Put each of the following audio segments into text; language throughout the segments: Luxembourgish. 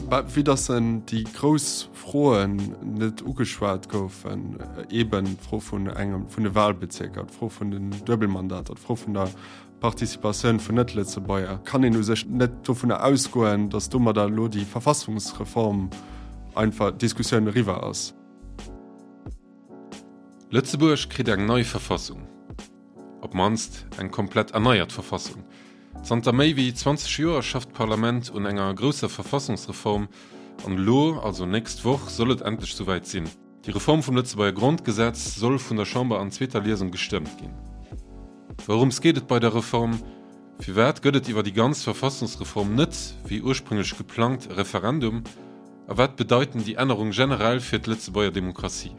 Vue dass en déi grouss Froen net ugeschwat goufen, eeben d'Fro vun engem, vun de Wahlbezierker, d'Fro vun den Duebelmandater, d'Fro vun der Participatioun vun Net-Lëtzebuerger, kann een u sech net dovunner ausgoen, dass domadder elo déi Verfassungsreform einfach d'Diskussioun eriwwer ass. Lëtzebuerg kritt eng nei Verfassung. Op d'mannst eng komplett erneiert Verfassung. Zanter méi wéi 20 Joer schafft d'Parlament un enger grousser Verfassungsreform an elo, also nächst Woch, soll et endlech souwäit sinn. Déi Reform vum Lëtzebuerger Grondgesetz soll vun der Chamber an zweeter Liesung gestëmmt ginn. Wourëms geet et bei der Reform? Firwat gëtt et iwwer déi ganz Verfassungsreform net, wéi ursprünglech geplangt, e Referendum? A wat bedeiten déi Ännerung generell fir d'Lëtzebuerger Demokratie?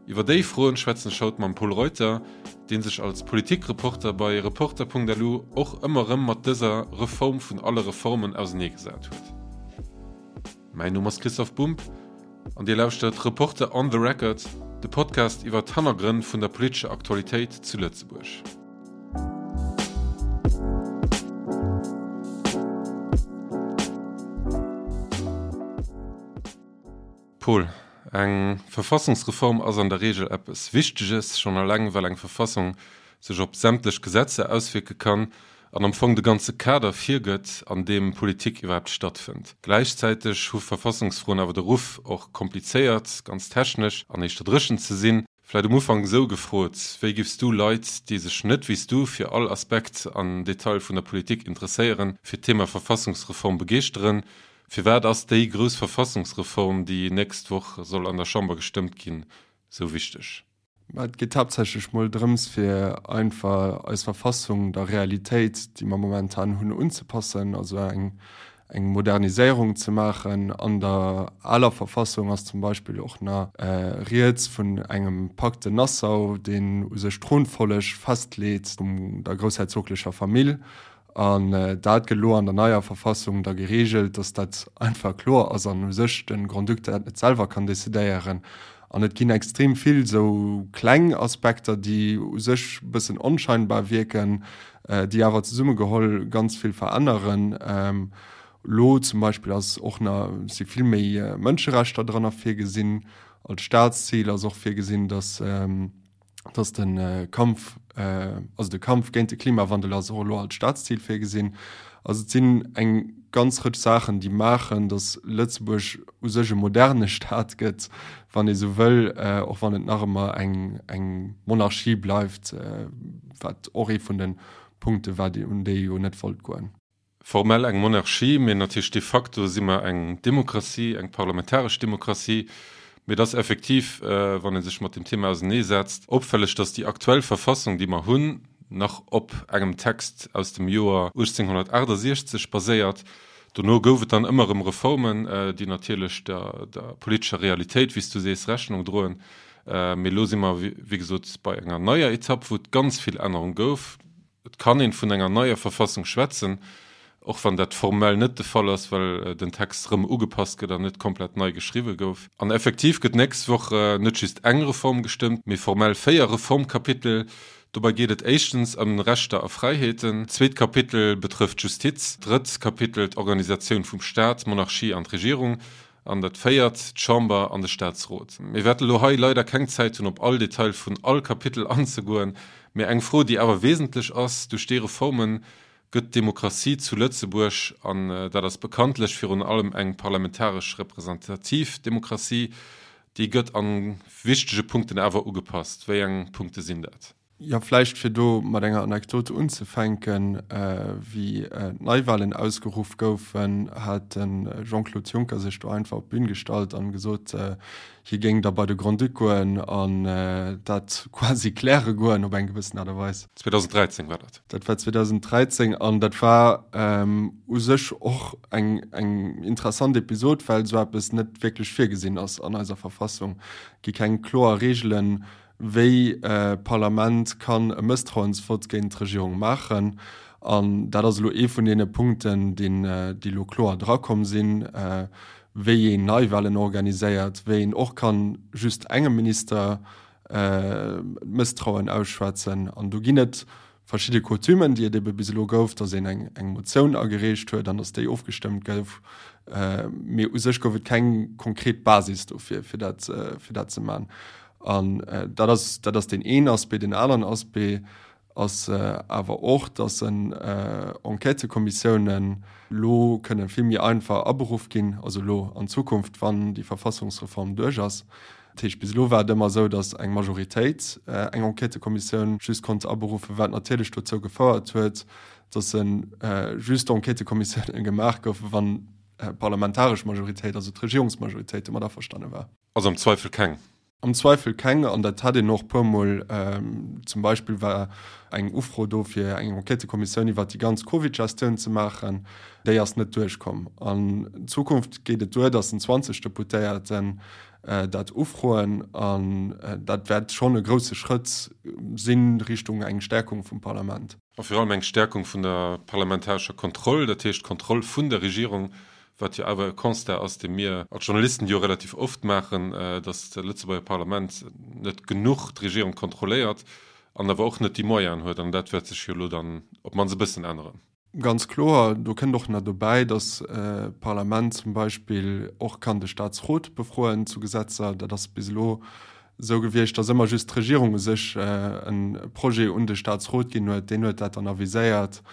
Iwwer déi Froen schwätzen ech haut mam Pol Reuter, dee sech als Politikreporter bei Reporter.lu och ëmmer erëm mat dëser Reform vun alle Reformen auseneegesat huet. Mäin Numm ass Christoph Bumb an Dir lauschtert Reporter on the Record, de Podcast iwwer d'Hannergrënn vun der politescher Aktualitéit zu Lëtzebuerg. Paul, eng Verfassungsreform ass an der Reegel eppes Wichteges, schonn eleng well eng Verfassung sech op sämtlech Gesetzer auswierke kann an am Fong de ganze Kader virgëtt, an deem Politik iwwerhaapt stattfënnt. Gläichzäiteg hu Verfassungsfroen awer de Ruff, och komplizéiert, ganz technesch an éischter dréchen ze sinn. Vläit um Ufank esou gefrot, Wéi giffs du Leit, déi sech net wéi s du fir all Aspekt an Detail vun der Politik interesséieren, fir d'Thema Verfassungsreform begeeschteren? Firwat ass déi grouss Verfassungsreform, déi nächst Woch soll an der Chamber gestëmmt ginn, sou wichteg? Mä et geet haaptsächlech mol drëms, fir einfach eis Verfassung der Realitéit, déi mer momentan hunn, unzepassen, also eng, eng Moderniséierung ze maachen. An der aler Verfassung ass zum Beispill och nach rieds vun engem Pacte Nassau, deen u sech d'Thronfolleg festleet vun der groussherzoglecher Famill. An dat gëtt elo an der neier Verfassung da geregelt, dass dat einfach kloer ass an u sech de Grand-Duc dat net selwer kann decidéieren. An et ginn extrem vill esou kleng Aspekter, déi u sech e bëssen onscheinbar wierken, déi awer zesummegeholl ganz vill veränneren. Elo zum Beispill ass och nach, si vill méi Mënscherechter dran virgesinn. Als Staatszil ass och virgesinn, dass, dass de Kampf, also de Kampf géint de Klimawandel ass och elo als Staatszil virgesinn. Also et sinn eng ganz Rëtsch Saachen, déi maachen, datt Lëtzebuerg u sech e moderne Staat gëtt, wann ee sou wëll, och wann et nach ëmmer eng, eng Monarchie bleift, wat och ee vun de Punkte war, un déi ee jo net wollt goen. Formell eng Monarchie, mee natierlech de facto si mer eng Demokratie, eng parlamentaresch Demokratie. Mee et ass effektiv, wann ee sech mat deem Thema auseneesetzt, opfälleg, datt déi aktuell Verfassung, déi mer hunn, nach op engem Text aus dem Joer 1868 baséiert. Dono gouf et dann ëmmer erëm Reformen, déi natierlech der politescher Realitéit, wéi s du sees, Rechnung droen. Mee elo si mer, wéi gesot, bei enger neier Etapp, wou et ganz vill Ännerung gouf. Et kann een vun enger neier Verfassung schwätzen, och wann dat formell net de Fall ass, well den Text rëm ugepasst gëtt an net komplett nei geschriwwe gouf. An effektiv gëtt nächst Woch net just eng Reform gestëmmt, mee formell 4 Reformkapitel. Dobei geet et éischtens ëm Rechter a Fräiheeten, d'zweet Kapitel betrëfft d'Justiz, d'drëtt Kapitel d'Organisatioun vum Staat, d'Monarchie an d'Regierung An dat véiert, d'Chamber an de Statsrot. Mir wäerte elo hei leider keng Zäit hunn, op all Detail vun all Kapitel anzegoen, mä eng Fro, déi awer wesentlech ass, Duerch déi Reforme gëtt d'Demokratie zu Lëtzebuerg, an dat ass bekanntlech virun allem eng parlamentaresch representativ Demokratie, déi gëtt a wichtege Punkten awer ugepasst. Wéi eng Punkte sinn dat? Jo, vläicht fir do mat enger Anekdote unzefänken, Wéi d'Neiwahlen ausgeruff goufen, hat de Jean-Claude Juncker sech do einfach op d'Bün gestallt an gesot, hie géing da bei de Grand-Duc goen an dat quasi kläre goen op eng gewëssen Aart a Weis. 2013 war dat. Dat war 2013 an dat war u sech och eng eng interessant Episod, well esou eppes net wierklech virgesinn ass an eiser Verfassung. Et gi keng kloer Reegelen, wéi d'Parlament kann e Mësstrauensvott géint d'Regierung maachen. An dat ass elo ee vun deene Punkten, deen, déi elo kloer drakomm sinn, wéi een Neiwahlen organiséiert, wéi een och kann just engem Minister d'Mësstrauen ausschwätzen. An do ginn et. verschidde Coutumen, déi et ebe bis elo gouf, datt een eng eng Motioun agereecht huet an datt déi ofgestëmmt gouf. Mee u sech gouf et keng konkret Basis dofir, fir dat, fir dat ze man. An dat ass, dat ass deen een Aspect. Deen aneren Aspect ass awer och, datt en Enquêtëkommissiounen elo kënne vill méi einfach aberuff ginn, also elo an Zukunft, wann déi Verfassungsreform duerch ass. Dat heescht, bis elo war et ëmmer esou, datt eng Majoritéit eng Enquêtëkommissioun just konnt aberuffen, wat natierlech dozou gefouert huet, datt just Enquêtëkommissiounen gemaach goufen, wann d'parlamentaresch Majoritéit, also d'Regierungsmajoritéit domat averstane war. Also am Zweifel keng. Am Zweifel keng, an dat hat een och e puermol. Zum Beispill war eng Ufro do, fir eng Enquêtëkommissioun iwwert déi ganz Covid-Gestioun ze maachen. Déi ass net duerchkomm. An Zukunft geet et duer, datt en 20 Deputéierten dat ufroen an dat wäert schonn e grousse Schrëtt si Richtung eng Stärkung vum Parlament. A virun allem eng Stärkung vun der parlamentarescher Kontroll, dat heescht d'Kontroll vun der Regierung, wat jo awer e Constat ass, dee mir als Journalisten jo relativ oft maachen, datt d'Lëtzebuerger Parlament net genuch d'Regierung kontrolléiert an awer och net déi Moyenen huet. An dat wäert sech jo elo dann op d'mannst e bëssen änneren. Ganz kloer. Do kënnt och nach dobäi, datt d'Parlament zum Beispill och kann de Staatsrot befroen zu Gesetzer. Dat ass bis elo esou gewiescht, datt ëmmer just d'Regierung u sech e Projet un de Staatsrot ginn huet. Deen huet dat dann aviséiert.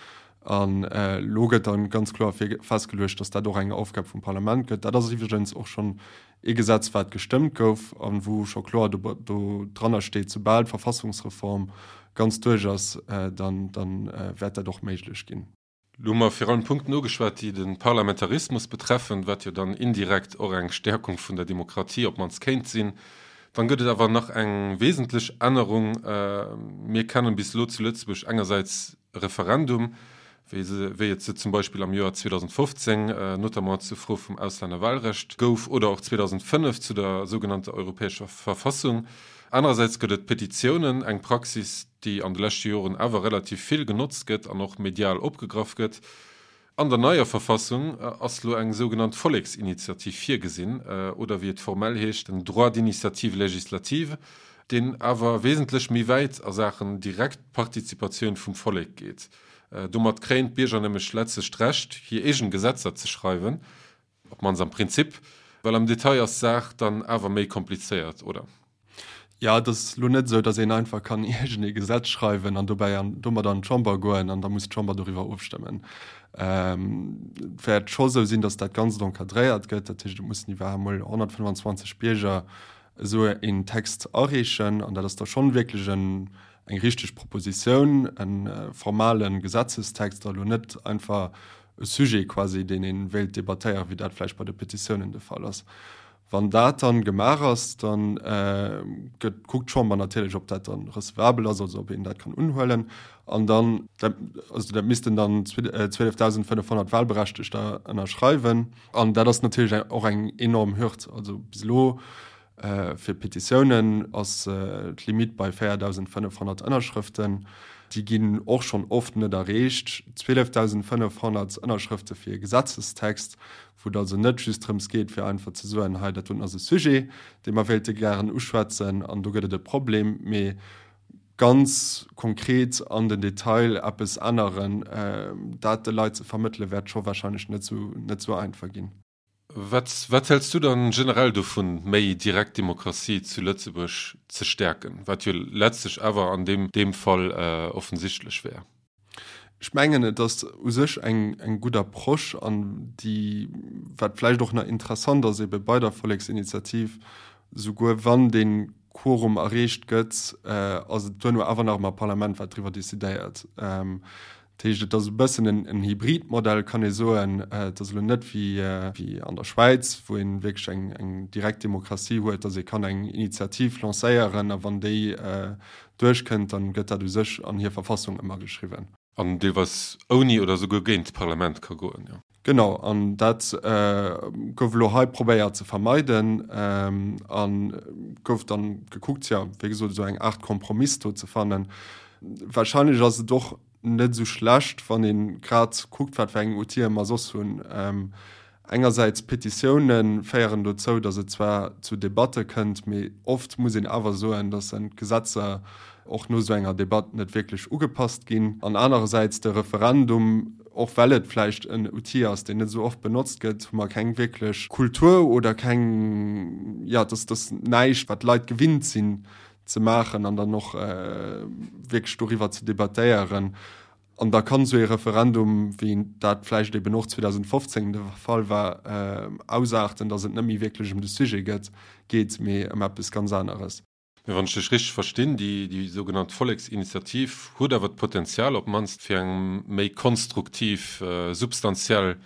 An elo gëtt da ganz kloer festgeluecht, datt dat och eng Aufgab vum Parlament gëtt. Dat ass iwwregens och schonn ee Gesetz, wat gestëmmt gouf a wou scho kloer do dranner steet, soubal d'Verfassungsreform ganz duerch ass, dann wäert dat och méiglech ginn. Elo hu mer virun allem Punkten ugeschwat, déi de Parlamentarismus betreffen, wat jo dann indirekt och eng Stärkung vun der Demokratie op d'mannst kéint sinn. Dann gëtt et awer nach eng wesentlech Ännerung. Mir kennen bis elo zu Lëtzebuerg engersäits e Referendum, wéi se, wéi et se zum Beispill am Joer 2015, notamment zur Fro vum Auslännerwahlrecht gouf, oder och 2005 zu der sougenannter Europäescher Verfassung. Anerersäits gëtt et Petitiounen, eng Praxis, déi an de leschte Joren awer relativ vill genotzt gëtt an och medial opgegraff gëtt. An der neier Verfassung ass lo eng sougenannt Volleksinitiativ virgesinn, oder wéi et formell heescht, den Droit d'initiative législative, deen awer wesentlech méi wäit a Saachen direkt Partizipatioun vum Vollek geet. Domat kréien d'Bierger nämlech letztlech d'Recht, hir eegen Gesetzer ze schreiwen, op d'mannst am Prinzip, well am Detail ass d'Saach dann awer méi komplizéiert, oder? Jo, et ass elo net esou, datt een einfach kann iergend ee Gesetz schreiwen an dobäi an domat an d'Chamber goen an da muss d'Chamber doriwwer ofstëmmen. Et wäert scho sou sinn, datt dat Ganzt encadréiert gëtt, dat heescht, et mussen iwwerhaapt emol 125 Bierger esou een Text areechen an dat ass da schonn wierklech en eng richteg Propositioun, e formale Gesetzestext a lo net einfach e Sujet quasi, deen ee wéilt debattéieren, wéi dat vläicht bei de Petitiounen de Fall ass. Wann dat dann gemaach ass, da gëtt, kuckt d'Chamber natierlech, ob dat dann recevabel ass, also ob een dat kann unhuelen. An dann, dat, also dat missten dann 12.500 Wahlberechtegter ënnerschreiwen. An dat ass natierlech och eng enorm Hürd. Also bis elo Fir Petitiounen ass d'Limitt bei 4.500 Ënnerschrëften. Déi ginn och schonn oft net erreecht. 12.500 Ënnerschrëfte fir e Gesetzestext, wou et also net just drëms geet, fir einfach ze soen, hei dat doten ass e Sujet, dee mer wéilte gären uschwätzen an do gëtt et e Problem, mee ganz konkret an den Detail eppes änneren, dat de Leit ze vermëttelen, wäert scho warscheinlech net esou einfach ginn. Wat, wat häls du dann generell dovun, méi direkt Demokratie zu Lëtzebuerg ze stäerken, wat jo letztlech awer an deem, deem Fall offensichtlech wär? Ech mengen, et ass u sech eng, eng gutt Approche an déi, wat vläicht och nach interessant ass ebe bei der Volleksinitiativ, souguer wann dee Quorum erreecht gëtt, ass et duerno awer nach ëmmer d'Parlament, wat driwwer decidéiert. Dat heescht, et ass e bëssen en Hybridmodell, kann ee soen. Et ass elo net wéi an der Schwäiz, wou ee wierklech eng direkt Demokratie huet, datt ee kann eng Initiativ lancéieren a wann déi duerchkënnt, dann gëtt dat u sech an hir Verfassung ëmmer geschriwwen. An deelweis ouni oder esouguer géint d'Parlament ka goen, jo. Genau, an dat gouf elo hei probéiert ze vermeiden a gouf dann gekuckt, jo, wéi gesot, esou eng Aart Kompromiss do ze fannen. Wahrscheinlech ass et och net esou schlecht, wann ee grad kuckt, wat fir eng Outile mer soss hunn. Engersäits, Petitioune féieren dozou, datt et zwar zu Debatte kënnt, mee oft muss een awer soen, datt en d'Gesetzer. Och no esou enger Debatt net wierklech ugepasst ginn. An anerersäits de Referendum, och well et vläicht en Outil ass, deen net esou oft benotzt gëtt, hu mer keng wierklech Kultur oder keng, jo, et ass näischt, wat d'Leit gewinnt sinn ze maachen an dann och wierklech doriwwer ze debattéieren. An da kann esou ee Referendum, wéi dat vläicht eben och 2015 de Fall war, ausaarten, datt et net méi wierklech ëm de Sujet gëtt, geet, mee ëm eppes ganz aneres. Mee wann ech dech richteg verstinn, déi, déi sougenannt Volleksinitiativ huet awer d'Potenzial op d'mannst fir eng méi konstruktiv, substantiell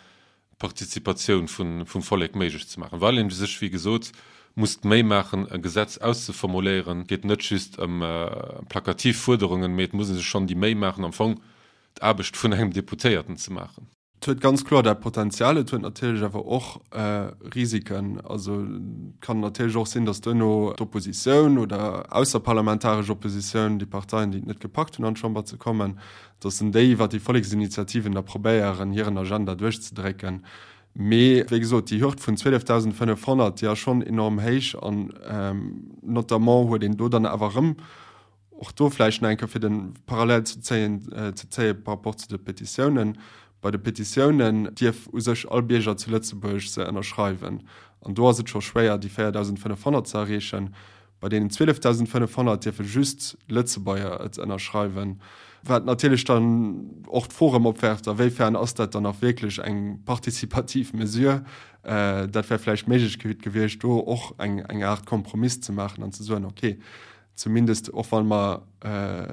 Participatioun vum Vollek méiglech ze maachen, well een sech, wéi gesot, muss d'Méi maachen, e Gesetz auszeformuléieren. Et geet net just ëm plakativ Fuerderungen, mee et muss ee sech schonn déi Méi maachen, am Fong d'Aarbecht vun engem Deputéierten ze maachen. Et huet ganz kloer dat Potenzial. Et huet natierlech awer och Risiken. Also et kann natierlech och sinn, datt duerno d'Oppositioun oder ausserparlamentaresch Oppositioun, déi Parteien, déi et net gepackt hunn an d'Chamber ze kommen, datt en déi iwwer déi Volleksinitiativen da probéieren, hiren Agenda duerchzedrécken. Mee, wéi gesot, déi Hürd vun 12.500, déi ass schonn enorm héich an notamment huet een do dann awer erëm, och do vläicht nach eng Kéier fir de Parallel ze zéien, ze zéie par rapport zu de Petitiounen, Bei de Petitiounen dierf u sech all Bierger zu Lëtzebuerg se ënnerschreiwen an do ass et scho schwéier, déi 4.500 ze erreechen. Bei deenen 12.500 dierfe just Lëtzebuerger et ënnerschreiwen, wat natierlech dann och d'Fro erëm opwerft, a wéifern ass dat dann nach wierklech eng participativ Mesure. Dat wär vläicht d'Méiglechkeet gewiescht, do och eng Aart Kompromiss ze maachen an ze soen, okay, zumindest och wa mer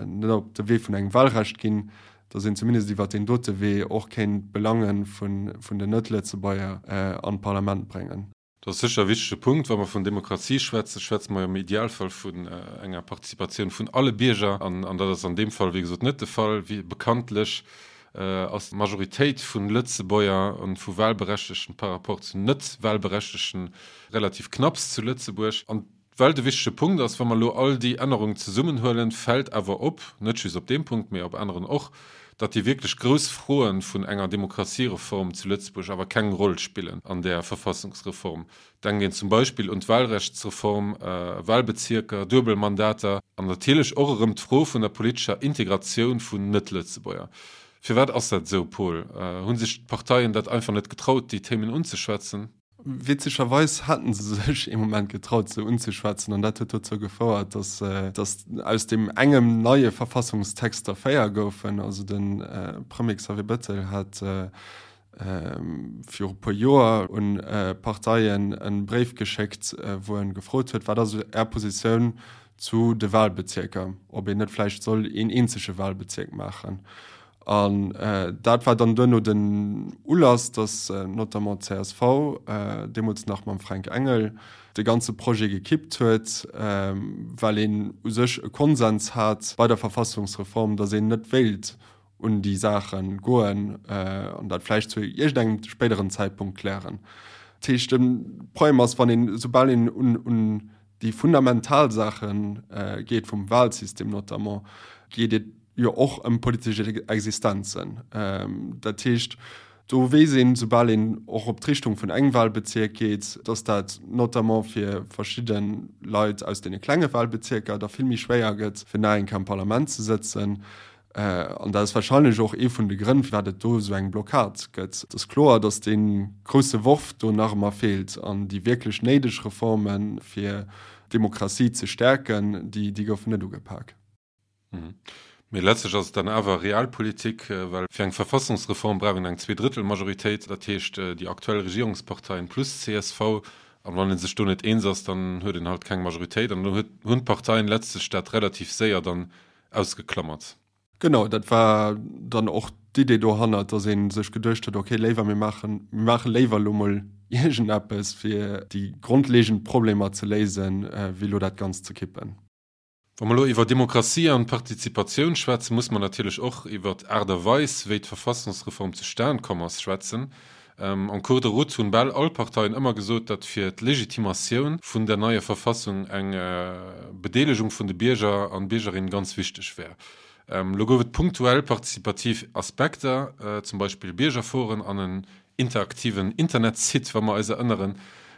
net op de Wee vun engem Wahlrecht ginn, datt een zumindest iwwert deen dote Wee och kéint d'Belange vun den Net-Lëtzebuerger an d'Parlament bréngen. Dat ass sécher e wichtege Punkt. Wa mer vun Demokratie schwätzen, schwätze mer jo am Idealfall vun enger Participatioun vun alle Bierger. An dat ass an deem Fall, wéi gesot, net de Fall. Wéi bekanntlech ass d'Majoritéit vu Lëtzebuerger an vu Wahlberechtegten par rapport zu Net-Wahlberechtegten relativ knapps zu Lëtzebuerg. An Well de wichtege Punkt ass, wa mer elo all déi Ännerungen zesummenhuelen, fält awer op, net just op deem Punkt, mee op aneren och, datt déi wierklech grouss Froen vun enger Demokratiereform zu Lëtzebuerg awer keng Roll spillen an där Verfassungsreform. Denkt een zum Beispill un d'Wahlrechtsreform, Wahlbezierker, Duebelmandater an natierlech och erëm d'Fro vun der politescher Integratioun vun Net-Lëtzebuerger. Firwat ass dat esou, Paul? Hu sech d'Parteien dat einfach net getraut, déi Themen unzeschwätzen? Witzegerweis haten se sech ee Moment getraut se unzeschwätzen an dat huet dozou gefouert, datt datt aus deem engem neie Verfassungstext der 4 goufen. Also de Premier Xavier Bettel hat viru puer Joer un d'Parteien e Bréif geschéckt, wou en gefrot huet, wat ass Är Positioun zu de Wahlbezierker, ob een net vläicht soll een eenzege Wahlbezierk maachen. An dat war dann duerno den Ulass, datt notamment d'CSV, deemools nach mam Fränk Engel, de ganze Projet gekippt huet, well een u sech e Konsens hat bei der Verfassungsreform, datt een net wéilt un déi Saache goen an dat vläicht zu iergendengem spéideren Zäitpunkt klären. Dat heescht, de Problem ass, wann een, soubal een un déi fundamental Saache geet, vum Wahlsystem notamment, geet et jo och ëm politesch Existenzen. Dat heescht, do weess een, soubal een och op d'Richtung vun engem Wahlbezierk geet, dass dat notamment fir verschidde Leit aus deene klenge Wahlbezierker da vill méi schwéier gëtt, fir nach eng Kéier am Parlament ze sëtzen. An dat ass wahrscheinlech och ee vun de Grënn, firwat et do esou eng Blockad gëtt. Et ass kloer, dass dee grousse Worf do nach ëmmer feelt an déi wierklech néideg Reformen, fir d'Demokratie ze stäerken, déi goufen net ugepak. Mee letztlech ass et dann awer Realpolitik, well fir eng Verfassungsreform brauch een eng Zweedrëttelmajoritéit, dat heescht déi aktuell Regierungsparteien plus csv. An wann ee sech do net eens ass, dann huet een halt keng Majoritéit. An do hunn d'Parteien letztlech dat relativ séier dann ausgeklammert. Genau, dat war dann och d'Idee dohannert, dass ee sech geduecht huet, okay, léiwer mir maachen, mir maache léiwer elo mol iergendeppes, fir déi grondlegend Problemer ze léisen, wéi elo dat Ganzt ze kippen. Wa mer elo iwwer Demokratie an Partizipatioun schwätzen, muss mer natierlech och iwwer d'Aart a Weis, wéi d'Verfassungsreform zustan komm ass, schwätzen. En cours de route hunn bal all Parteien ëmmer gesot, datt fir d'Legitimatioun vun der neier Verfassung eng Bedeelegung vun de Bierger an Biergerinnen ganz wichteg wär. Elo gouf et punktuell partizipativ Aspekter, zum Beispill Biergerforen an en interaktiven Internetsite, wa mer eis erënneren.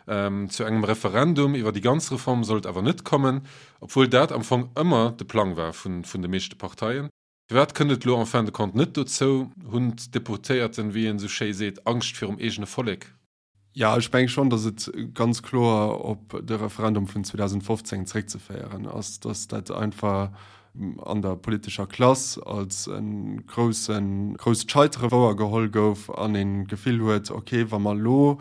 Zu engem Referendum iwwer déi ganz Reform soll et awer net kommen, obwuel dat am Fong ëmmer de Plang war vun de meeschte Parteien. Firwat kënnt et elo en fin de compte net dozou? Hunn d'Deputéierten, wéi een esou schéi seet, Angscht virum eegene Vollek? Jo, ech menge schonn, datt et ganz kloer op de Referendum vun 2015 zréckzeféieren ass, datt dat einfach an der politescher Klass als e groussen, grousst Scheitere wouergeholl gouf an een d'Gefill huet, okay, wa mer elo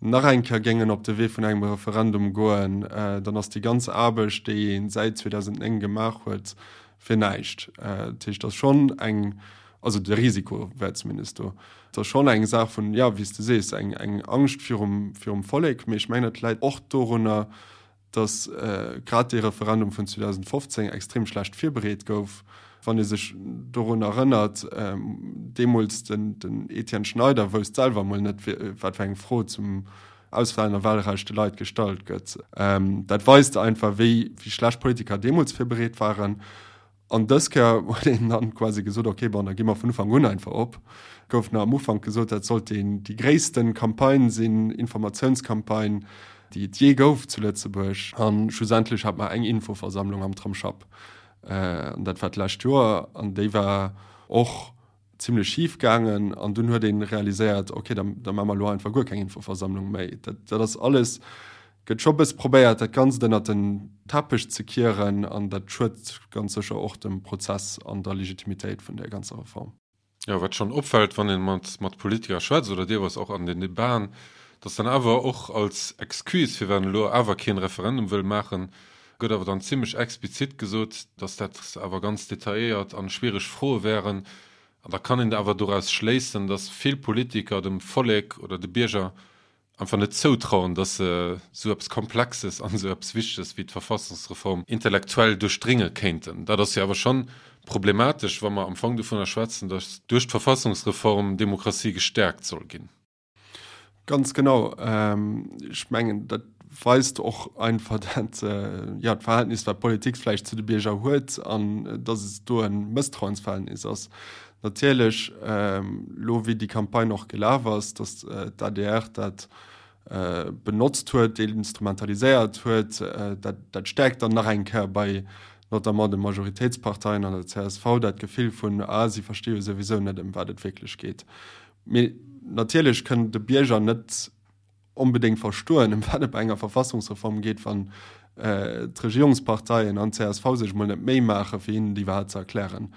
nach eng Kéier géingen op de Wee vun engem Referendum goen, dann ass déi ganz Aarbecht, déi ee säit 2009 gemaach huet, fir näischt. Dat heescht, et ass schonn eng, also de Risiko wär zumindest do. Et ass schonn eng Saach vun, jo, wéi s de sees, eng, eng Angscht virum, virum Vollek. Mee ech mengen, et läit och dorunner, datt grad dee Referendum vun 2015 extrem schlecht virbereet gouf. Wann ee sech dorun erënnert, deemools den Etienne Schneider wousst selwer emol net, wat fir eng Fro zum Auslännerwahlrecht de Leit gestallt gëtt. Dat weist einfach, wéi schlecht d'Politiker deemools virbereet waren. An dës Kéier huet een dann quasi gesot, ok, bon, da gi mer vun Ufank un einfach op. Gouf nach am Ufank gesot, dat sollt déi gréissten Campagne sinn, Informatiounscampagne, déi et jee gouf zu Lëtzebuerg. A schlussendlech hat mer eng Infoversammlung am Tramsschapp, an dat war d'lescht Joer, an déi war och zimlech schif gaangen. An dunn huet ee realiséiert, ok, da da maache mer elo einfach guer keng Infoversammlung méi. Dat dat ass alles, gëtt scho bësse probéiert, dat Ganzt ënnert den Teppech ze kieren an dat schuet ganz sécher och dem Prozess an der Legitimitéit vun där ganzer Reform. Jo, wat schonn opfält, wann ee mat mat Politiker schwätzt oder deelweis och an den Debaten, datt dann awer och als Excuse, firwat een elo awer keen Referendum wëll maachen, Gëtt awer dann zimlech explizit gesot, dass dat awer ganz detailléiert an schwiereg Froe wären. An da kann een awer doraus schléissen, dass vill Politiker dem Vollek oder de Bierger einfach net zoutrauen, dass se esou eppes Komplexes an esou eppes Wichteges wéi d'Verfassungsreform intellektuell duerchdrénge kéinten. Dat ass jo awer schonn problematesch, wa mer am Fong dovunner schwätzen, dass duerch d'Verfassungsreform d'Demokratie gestäerkt soll ginn. Ganz genau. Ech mengen, dat weist och einfach dat, ja, d'Verhältnis, wat d'Politik vläicht zu de Bierger huet an dass et do e Mësstrauensverhältnis ass. Natierlech, elo wéi déi Campagne och gelaf ass, dass d'ADR dat benotzt huet, instrumentaliséiert huet, dat, dat stäerkt dann nach eng Kéier bei notamment de Majoritéitsparteien an der csv dat Gefill vun, ah, si versti jo souwisou net, ëm wat et wierklech geet. Mee natierlech kënn de Bierger net onbedéngt verstoen, ëm wat et bei enger Verfassungsreform geet, wann d'Regierungsparteien an d'CSV sech emol net d'Méi maachen, fir hinnen et iwwerhaapt ze erklären.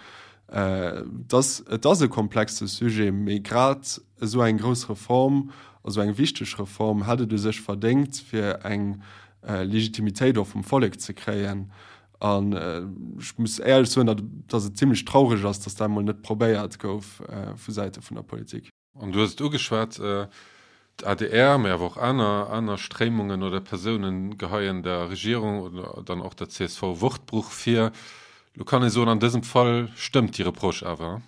Et ass, et ass e komplexe Sujet, mee grad esou eng grouss Reform, esou eng wichteg Reform hätt et u sech verdéngt, fir eng Legitimitéit och vum Vollek ze kréien. An ech muss éierlech soen, datt datt et zimlech traureg ass, datt dat emol net probéiert gouf vu Säite vun der Politik. An du hues et ugeschwat, d'ADR, mee awer och aner aner Stréimungen oder Persounen geheien der Regierung oder dann och der csv Wortbruch vir. Lo kann ee soen, an dësem Fall stëmmt déi Reproche awer.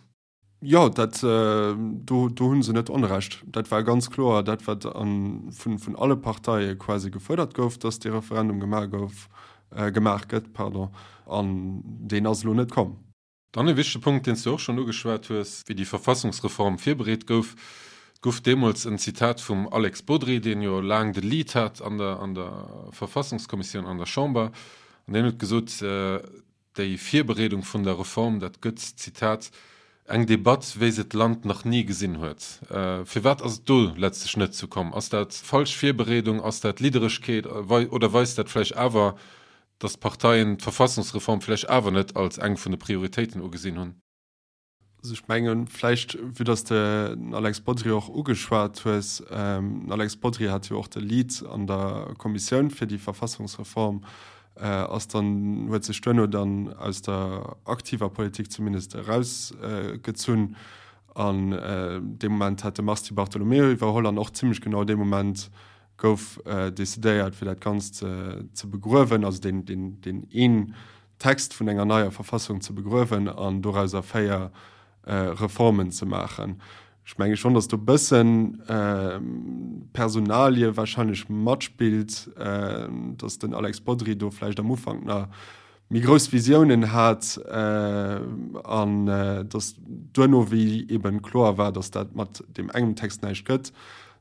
Jo, dat, do, do hu se net Onrecht. Dat war ganz kloer dat, wat vun, vun alle Parteie quasi gefuerdert gouf, dass dee Referendum gemaach gouf, gemaach gëtt, pardon, an deen ass elo net komm. Dann e wichtege Punkt, deen s du och schonn ugeschwat hues, wéi déi Verfassungsreform virbereet gouf. Et gouf deemools en Zitat vum Alex Bodry, deen jo laang de Lead hat an der, an der Verfassungskommissioun an der Chamber, an deen huet gesot, Déi Virbereedung vun der Reform, dat gëtt, Zitat, eng Debatt, wéi se d'Land nach ni gesinn huet. Firwat ass et do letztlech net zu komm? Ass dat falsch Virbereedung? Ass dat Lidderegkeet? Oder weist dat vläicht awer, datt d'Parteien d'Verfassungsreform vläicht awer net als eng vun de Prioritéiten ugesinn hunn? Also ech mengen, vläicht, vue dass de den Alex Bodry och ugeschwat hues, den Alex Bodry hat jo och de Lead an der Kommissioun fir déi Verfassungsreform, ass dann, huet sech duerno dann aus der aktiver Politik zumindest erausgezunn an dee Moment hat de Mars Di Bartolomeo iwwerholl an och zimlech genau dee Moment gouf decidéiert fir dat Ganzt ze begruewen, also deen, deen, deen een Text vun enger neier Verfassung ze begruewen an dorauser 4 Reformen ze maachen. Ech menge schonn, datt do e bëssen Personalie wahrscheinlech matspillt, datt den Alex Bodry do vläicht am Ufank nach méi grouss Visiounen hat an datt duerno, wéi eben kloer war, datt dat mat deem engem Text näischt gëtt,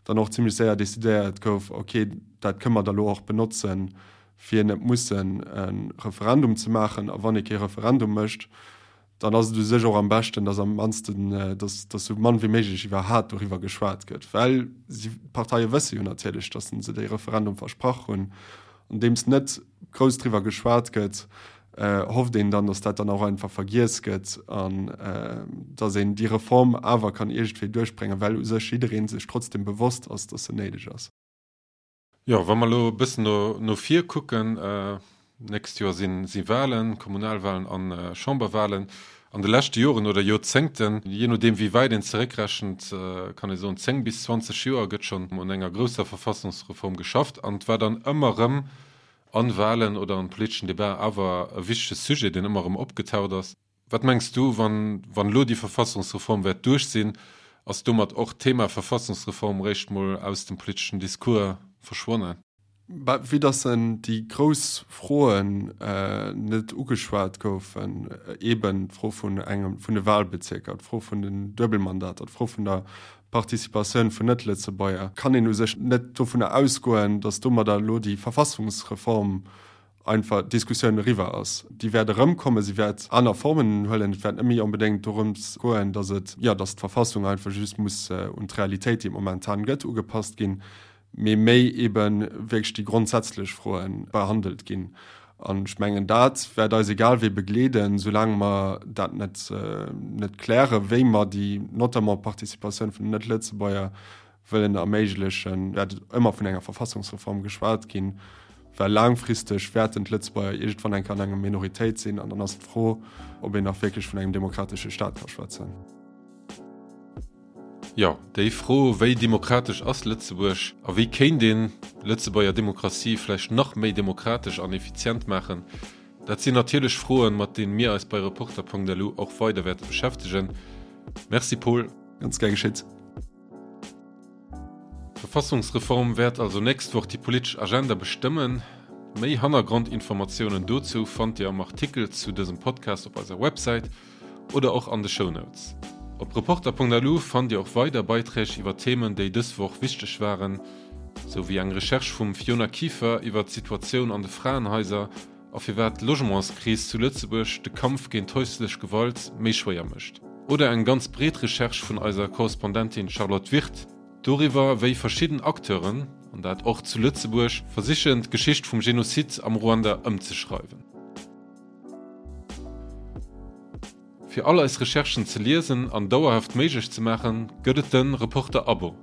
dann och zimlech séier decidéiert gouf, okay, dat kënne mer da lo och benotzen, fir net mussen e Referendum ze maachen. A wann ee kee Referendum mécht, dann ass et u sech och am beschten, dass am mannsten, dass, dass sou mann wéi méiglech iwwerhat doriwwer geschwat gëtt, well si, d'Parteie wësse jo natierlech, dass se dee Referendum versprach hunn. Andeems net grouss driwwer geschwat gëtt, hofft een dann, dass dat dann och einfach vergiess gëtt an dass een déi Reform awer kann iergendwéi duerchbréngen, well u sech jidderee sech trotzdem bewosst ass, dass se néideg ass. Jo, wa mer elo e bëssen no, no vir kucken, nächst Joer si, si Wahlen, Kommunalwahlen a Chamberwahlen. An de leschte Joren oder Joerzéngten, jee nodeem wéi wäit een zeréckrechent, kann ee soen 10 bis 20 Joer, gëtt schonn un enger grousser Verfassungsreform geschafft an et war dann ëmmer erëm an Wahlen oder an politeschen Debaten awer e wichtege Sujet, deen ëmmer erëm opgetaucht ass. Wat mengs du, wann wann elo déi Verfassungsreform wäert duerch sinn, ass domat och d'Thema Verfassungsreform réischt mol aus dem politeschen Discours verschwonnen? Bah, vue dass en déi grouss Froen net ugeschwat goufen, eeben d'Fro vun engem vun de Wahlbezierker, d'Fro vun den Duebelmandater, d'Fro vun der Participatioun vun Net-Lëtzebuerger, kann een u sech net dovunner ausgoen, dass domadder elo déi Verfassungsreform einfach d'Diskussioun eriwwer ass. Déi wäert erëmkommen, si wäert aner Formen huelen. Et wäert net méi onbedéngt dorëms goen, datt et, jo, datt d'Verfassung einfach just muss un d'Realitéit, déi et momentan gëtt, ugepasst ginn, mee méi eebe wierklech déi grondsätzlech Froe behandelt ginn. An ech mengen, dat wäert eis egal wéi begleeden, soulaang mer dat net, net klären, wéi mer déi notamment Participatioun vun den Net-Lëtzebuerger wëllen erméiglechen, wäert et ëmmer vun enger Verfassungsreform geschwat ginn, well laangfristeg wäerten d'Lëtzebuerger iergendwann eng Kéier an enger Minoritéit sinn an dann ass d'Fro, ob een nach wierklech vun engem demokratesche Staat ka schwätzen. Jo, déi Fro, wéi demokratesch ass Lëtzebuerg a wéi kéint een d'Lëtzebuerger Demokratie vläicht nach méi demokratesch an effizient maachen, dat sinn natierlech Froen, mat deene mir eis bei Reporter.lu och weider wäerte beschäftegen. Merci Paul. Ganz gär geschitt. D'Verfassungsreform wäert also nächst Woch déi politesch Agenda bestëmmen. Méi Hannergrondinformatiounen dozou fannt Dir am Artikel zu dësem Podcast op eiser Websäit oder och an de Shownotes. Op Reporter.lu fannt Dir och weider Beiträg iwwer Themen, déi dës Woch wichteg waren, sou wéi eng Recherche vum Fiona Kieffer iwwer d'Situatioun an de Fraenhaiser a firwat d'Logementskris zu Lëtzebuerg de Kampf géint häuslech Gewalt méi schwéier mécht. Oder eng ganz breet Recherche vun eiser Korrespondentin Charlotte Wirth doriwwer, wéi verschidden Acteuren, an dat och zu Lëtzebuerg, versichen d'Geschicht vum Genozid am Ruanda ëmzeschreiwen. Fir all eis Recherchen ze liesen an dauerhaft méiglech ze maachen, gëtt et de Reporter-Abo.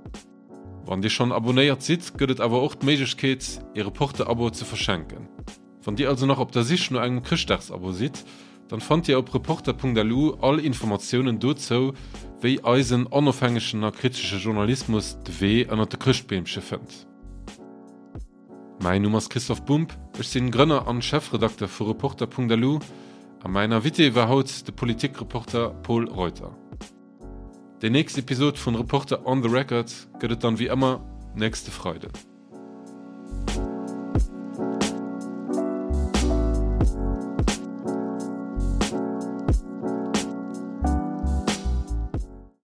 Wann Dir schonn abonnéiert sidd, gëtt et awer och d'Méiglechkeet, ee Reporter-Abo ze verschenken. Wann Dir also nach op der Sich no engem Chrëschtdagsabo sidd, dann fannt Dir op reporter.lu all Informatiounen dozou, wéi eisen onofhängegen a kritesche Journalismus de Wee ënnert de Chrëschtbeemche fënnt. Mäin Numm ass Christoph Bumb, ech sinn Grënner an Chefredakter vu Reporter.lu a mäin Invité war haut de Politikreporter Pol Reuter. Déi nächst Episod vun Reporter on the Record gëtt et dann wéi ëmmer nächste Freiden.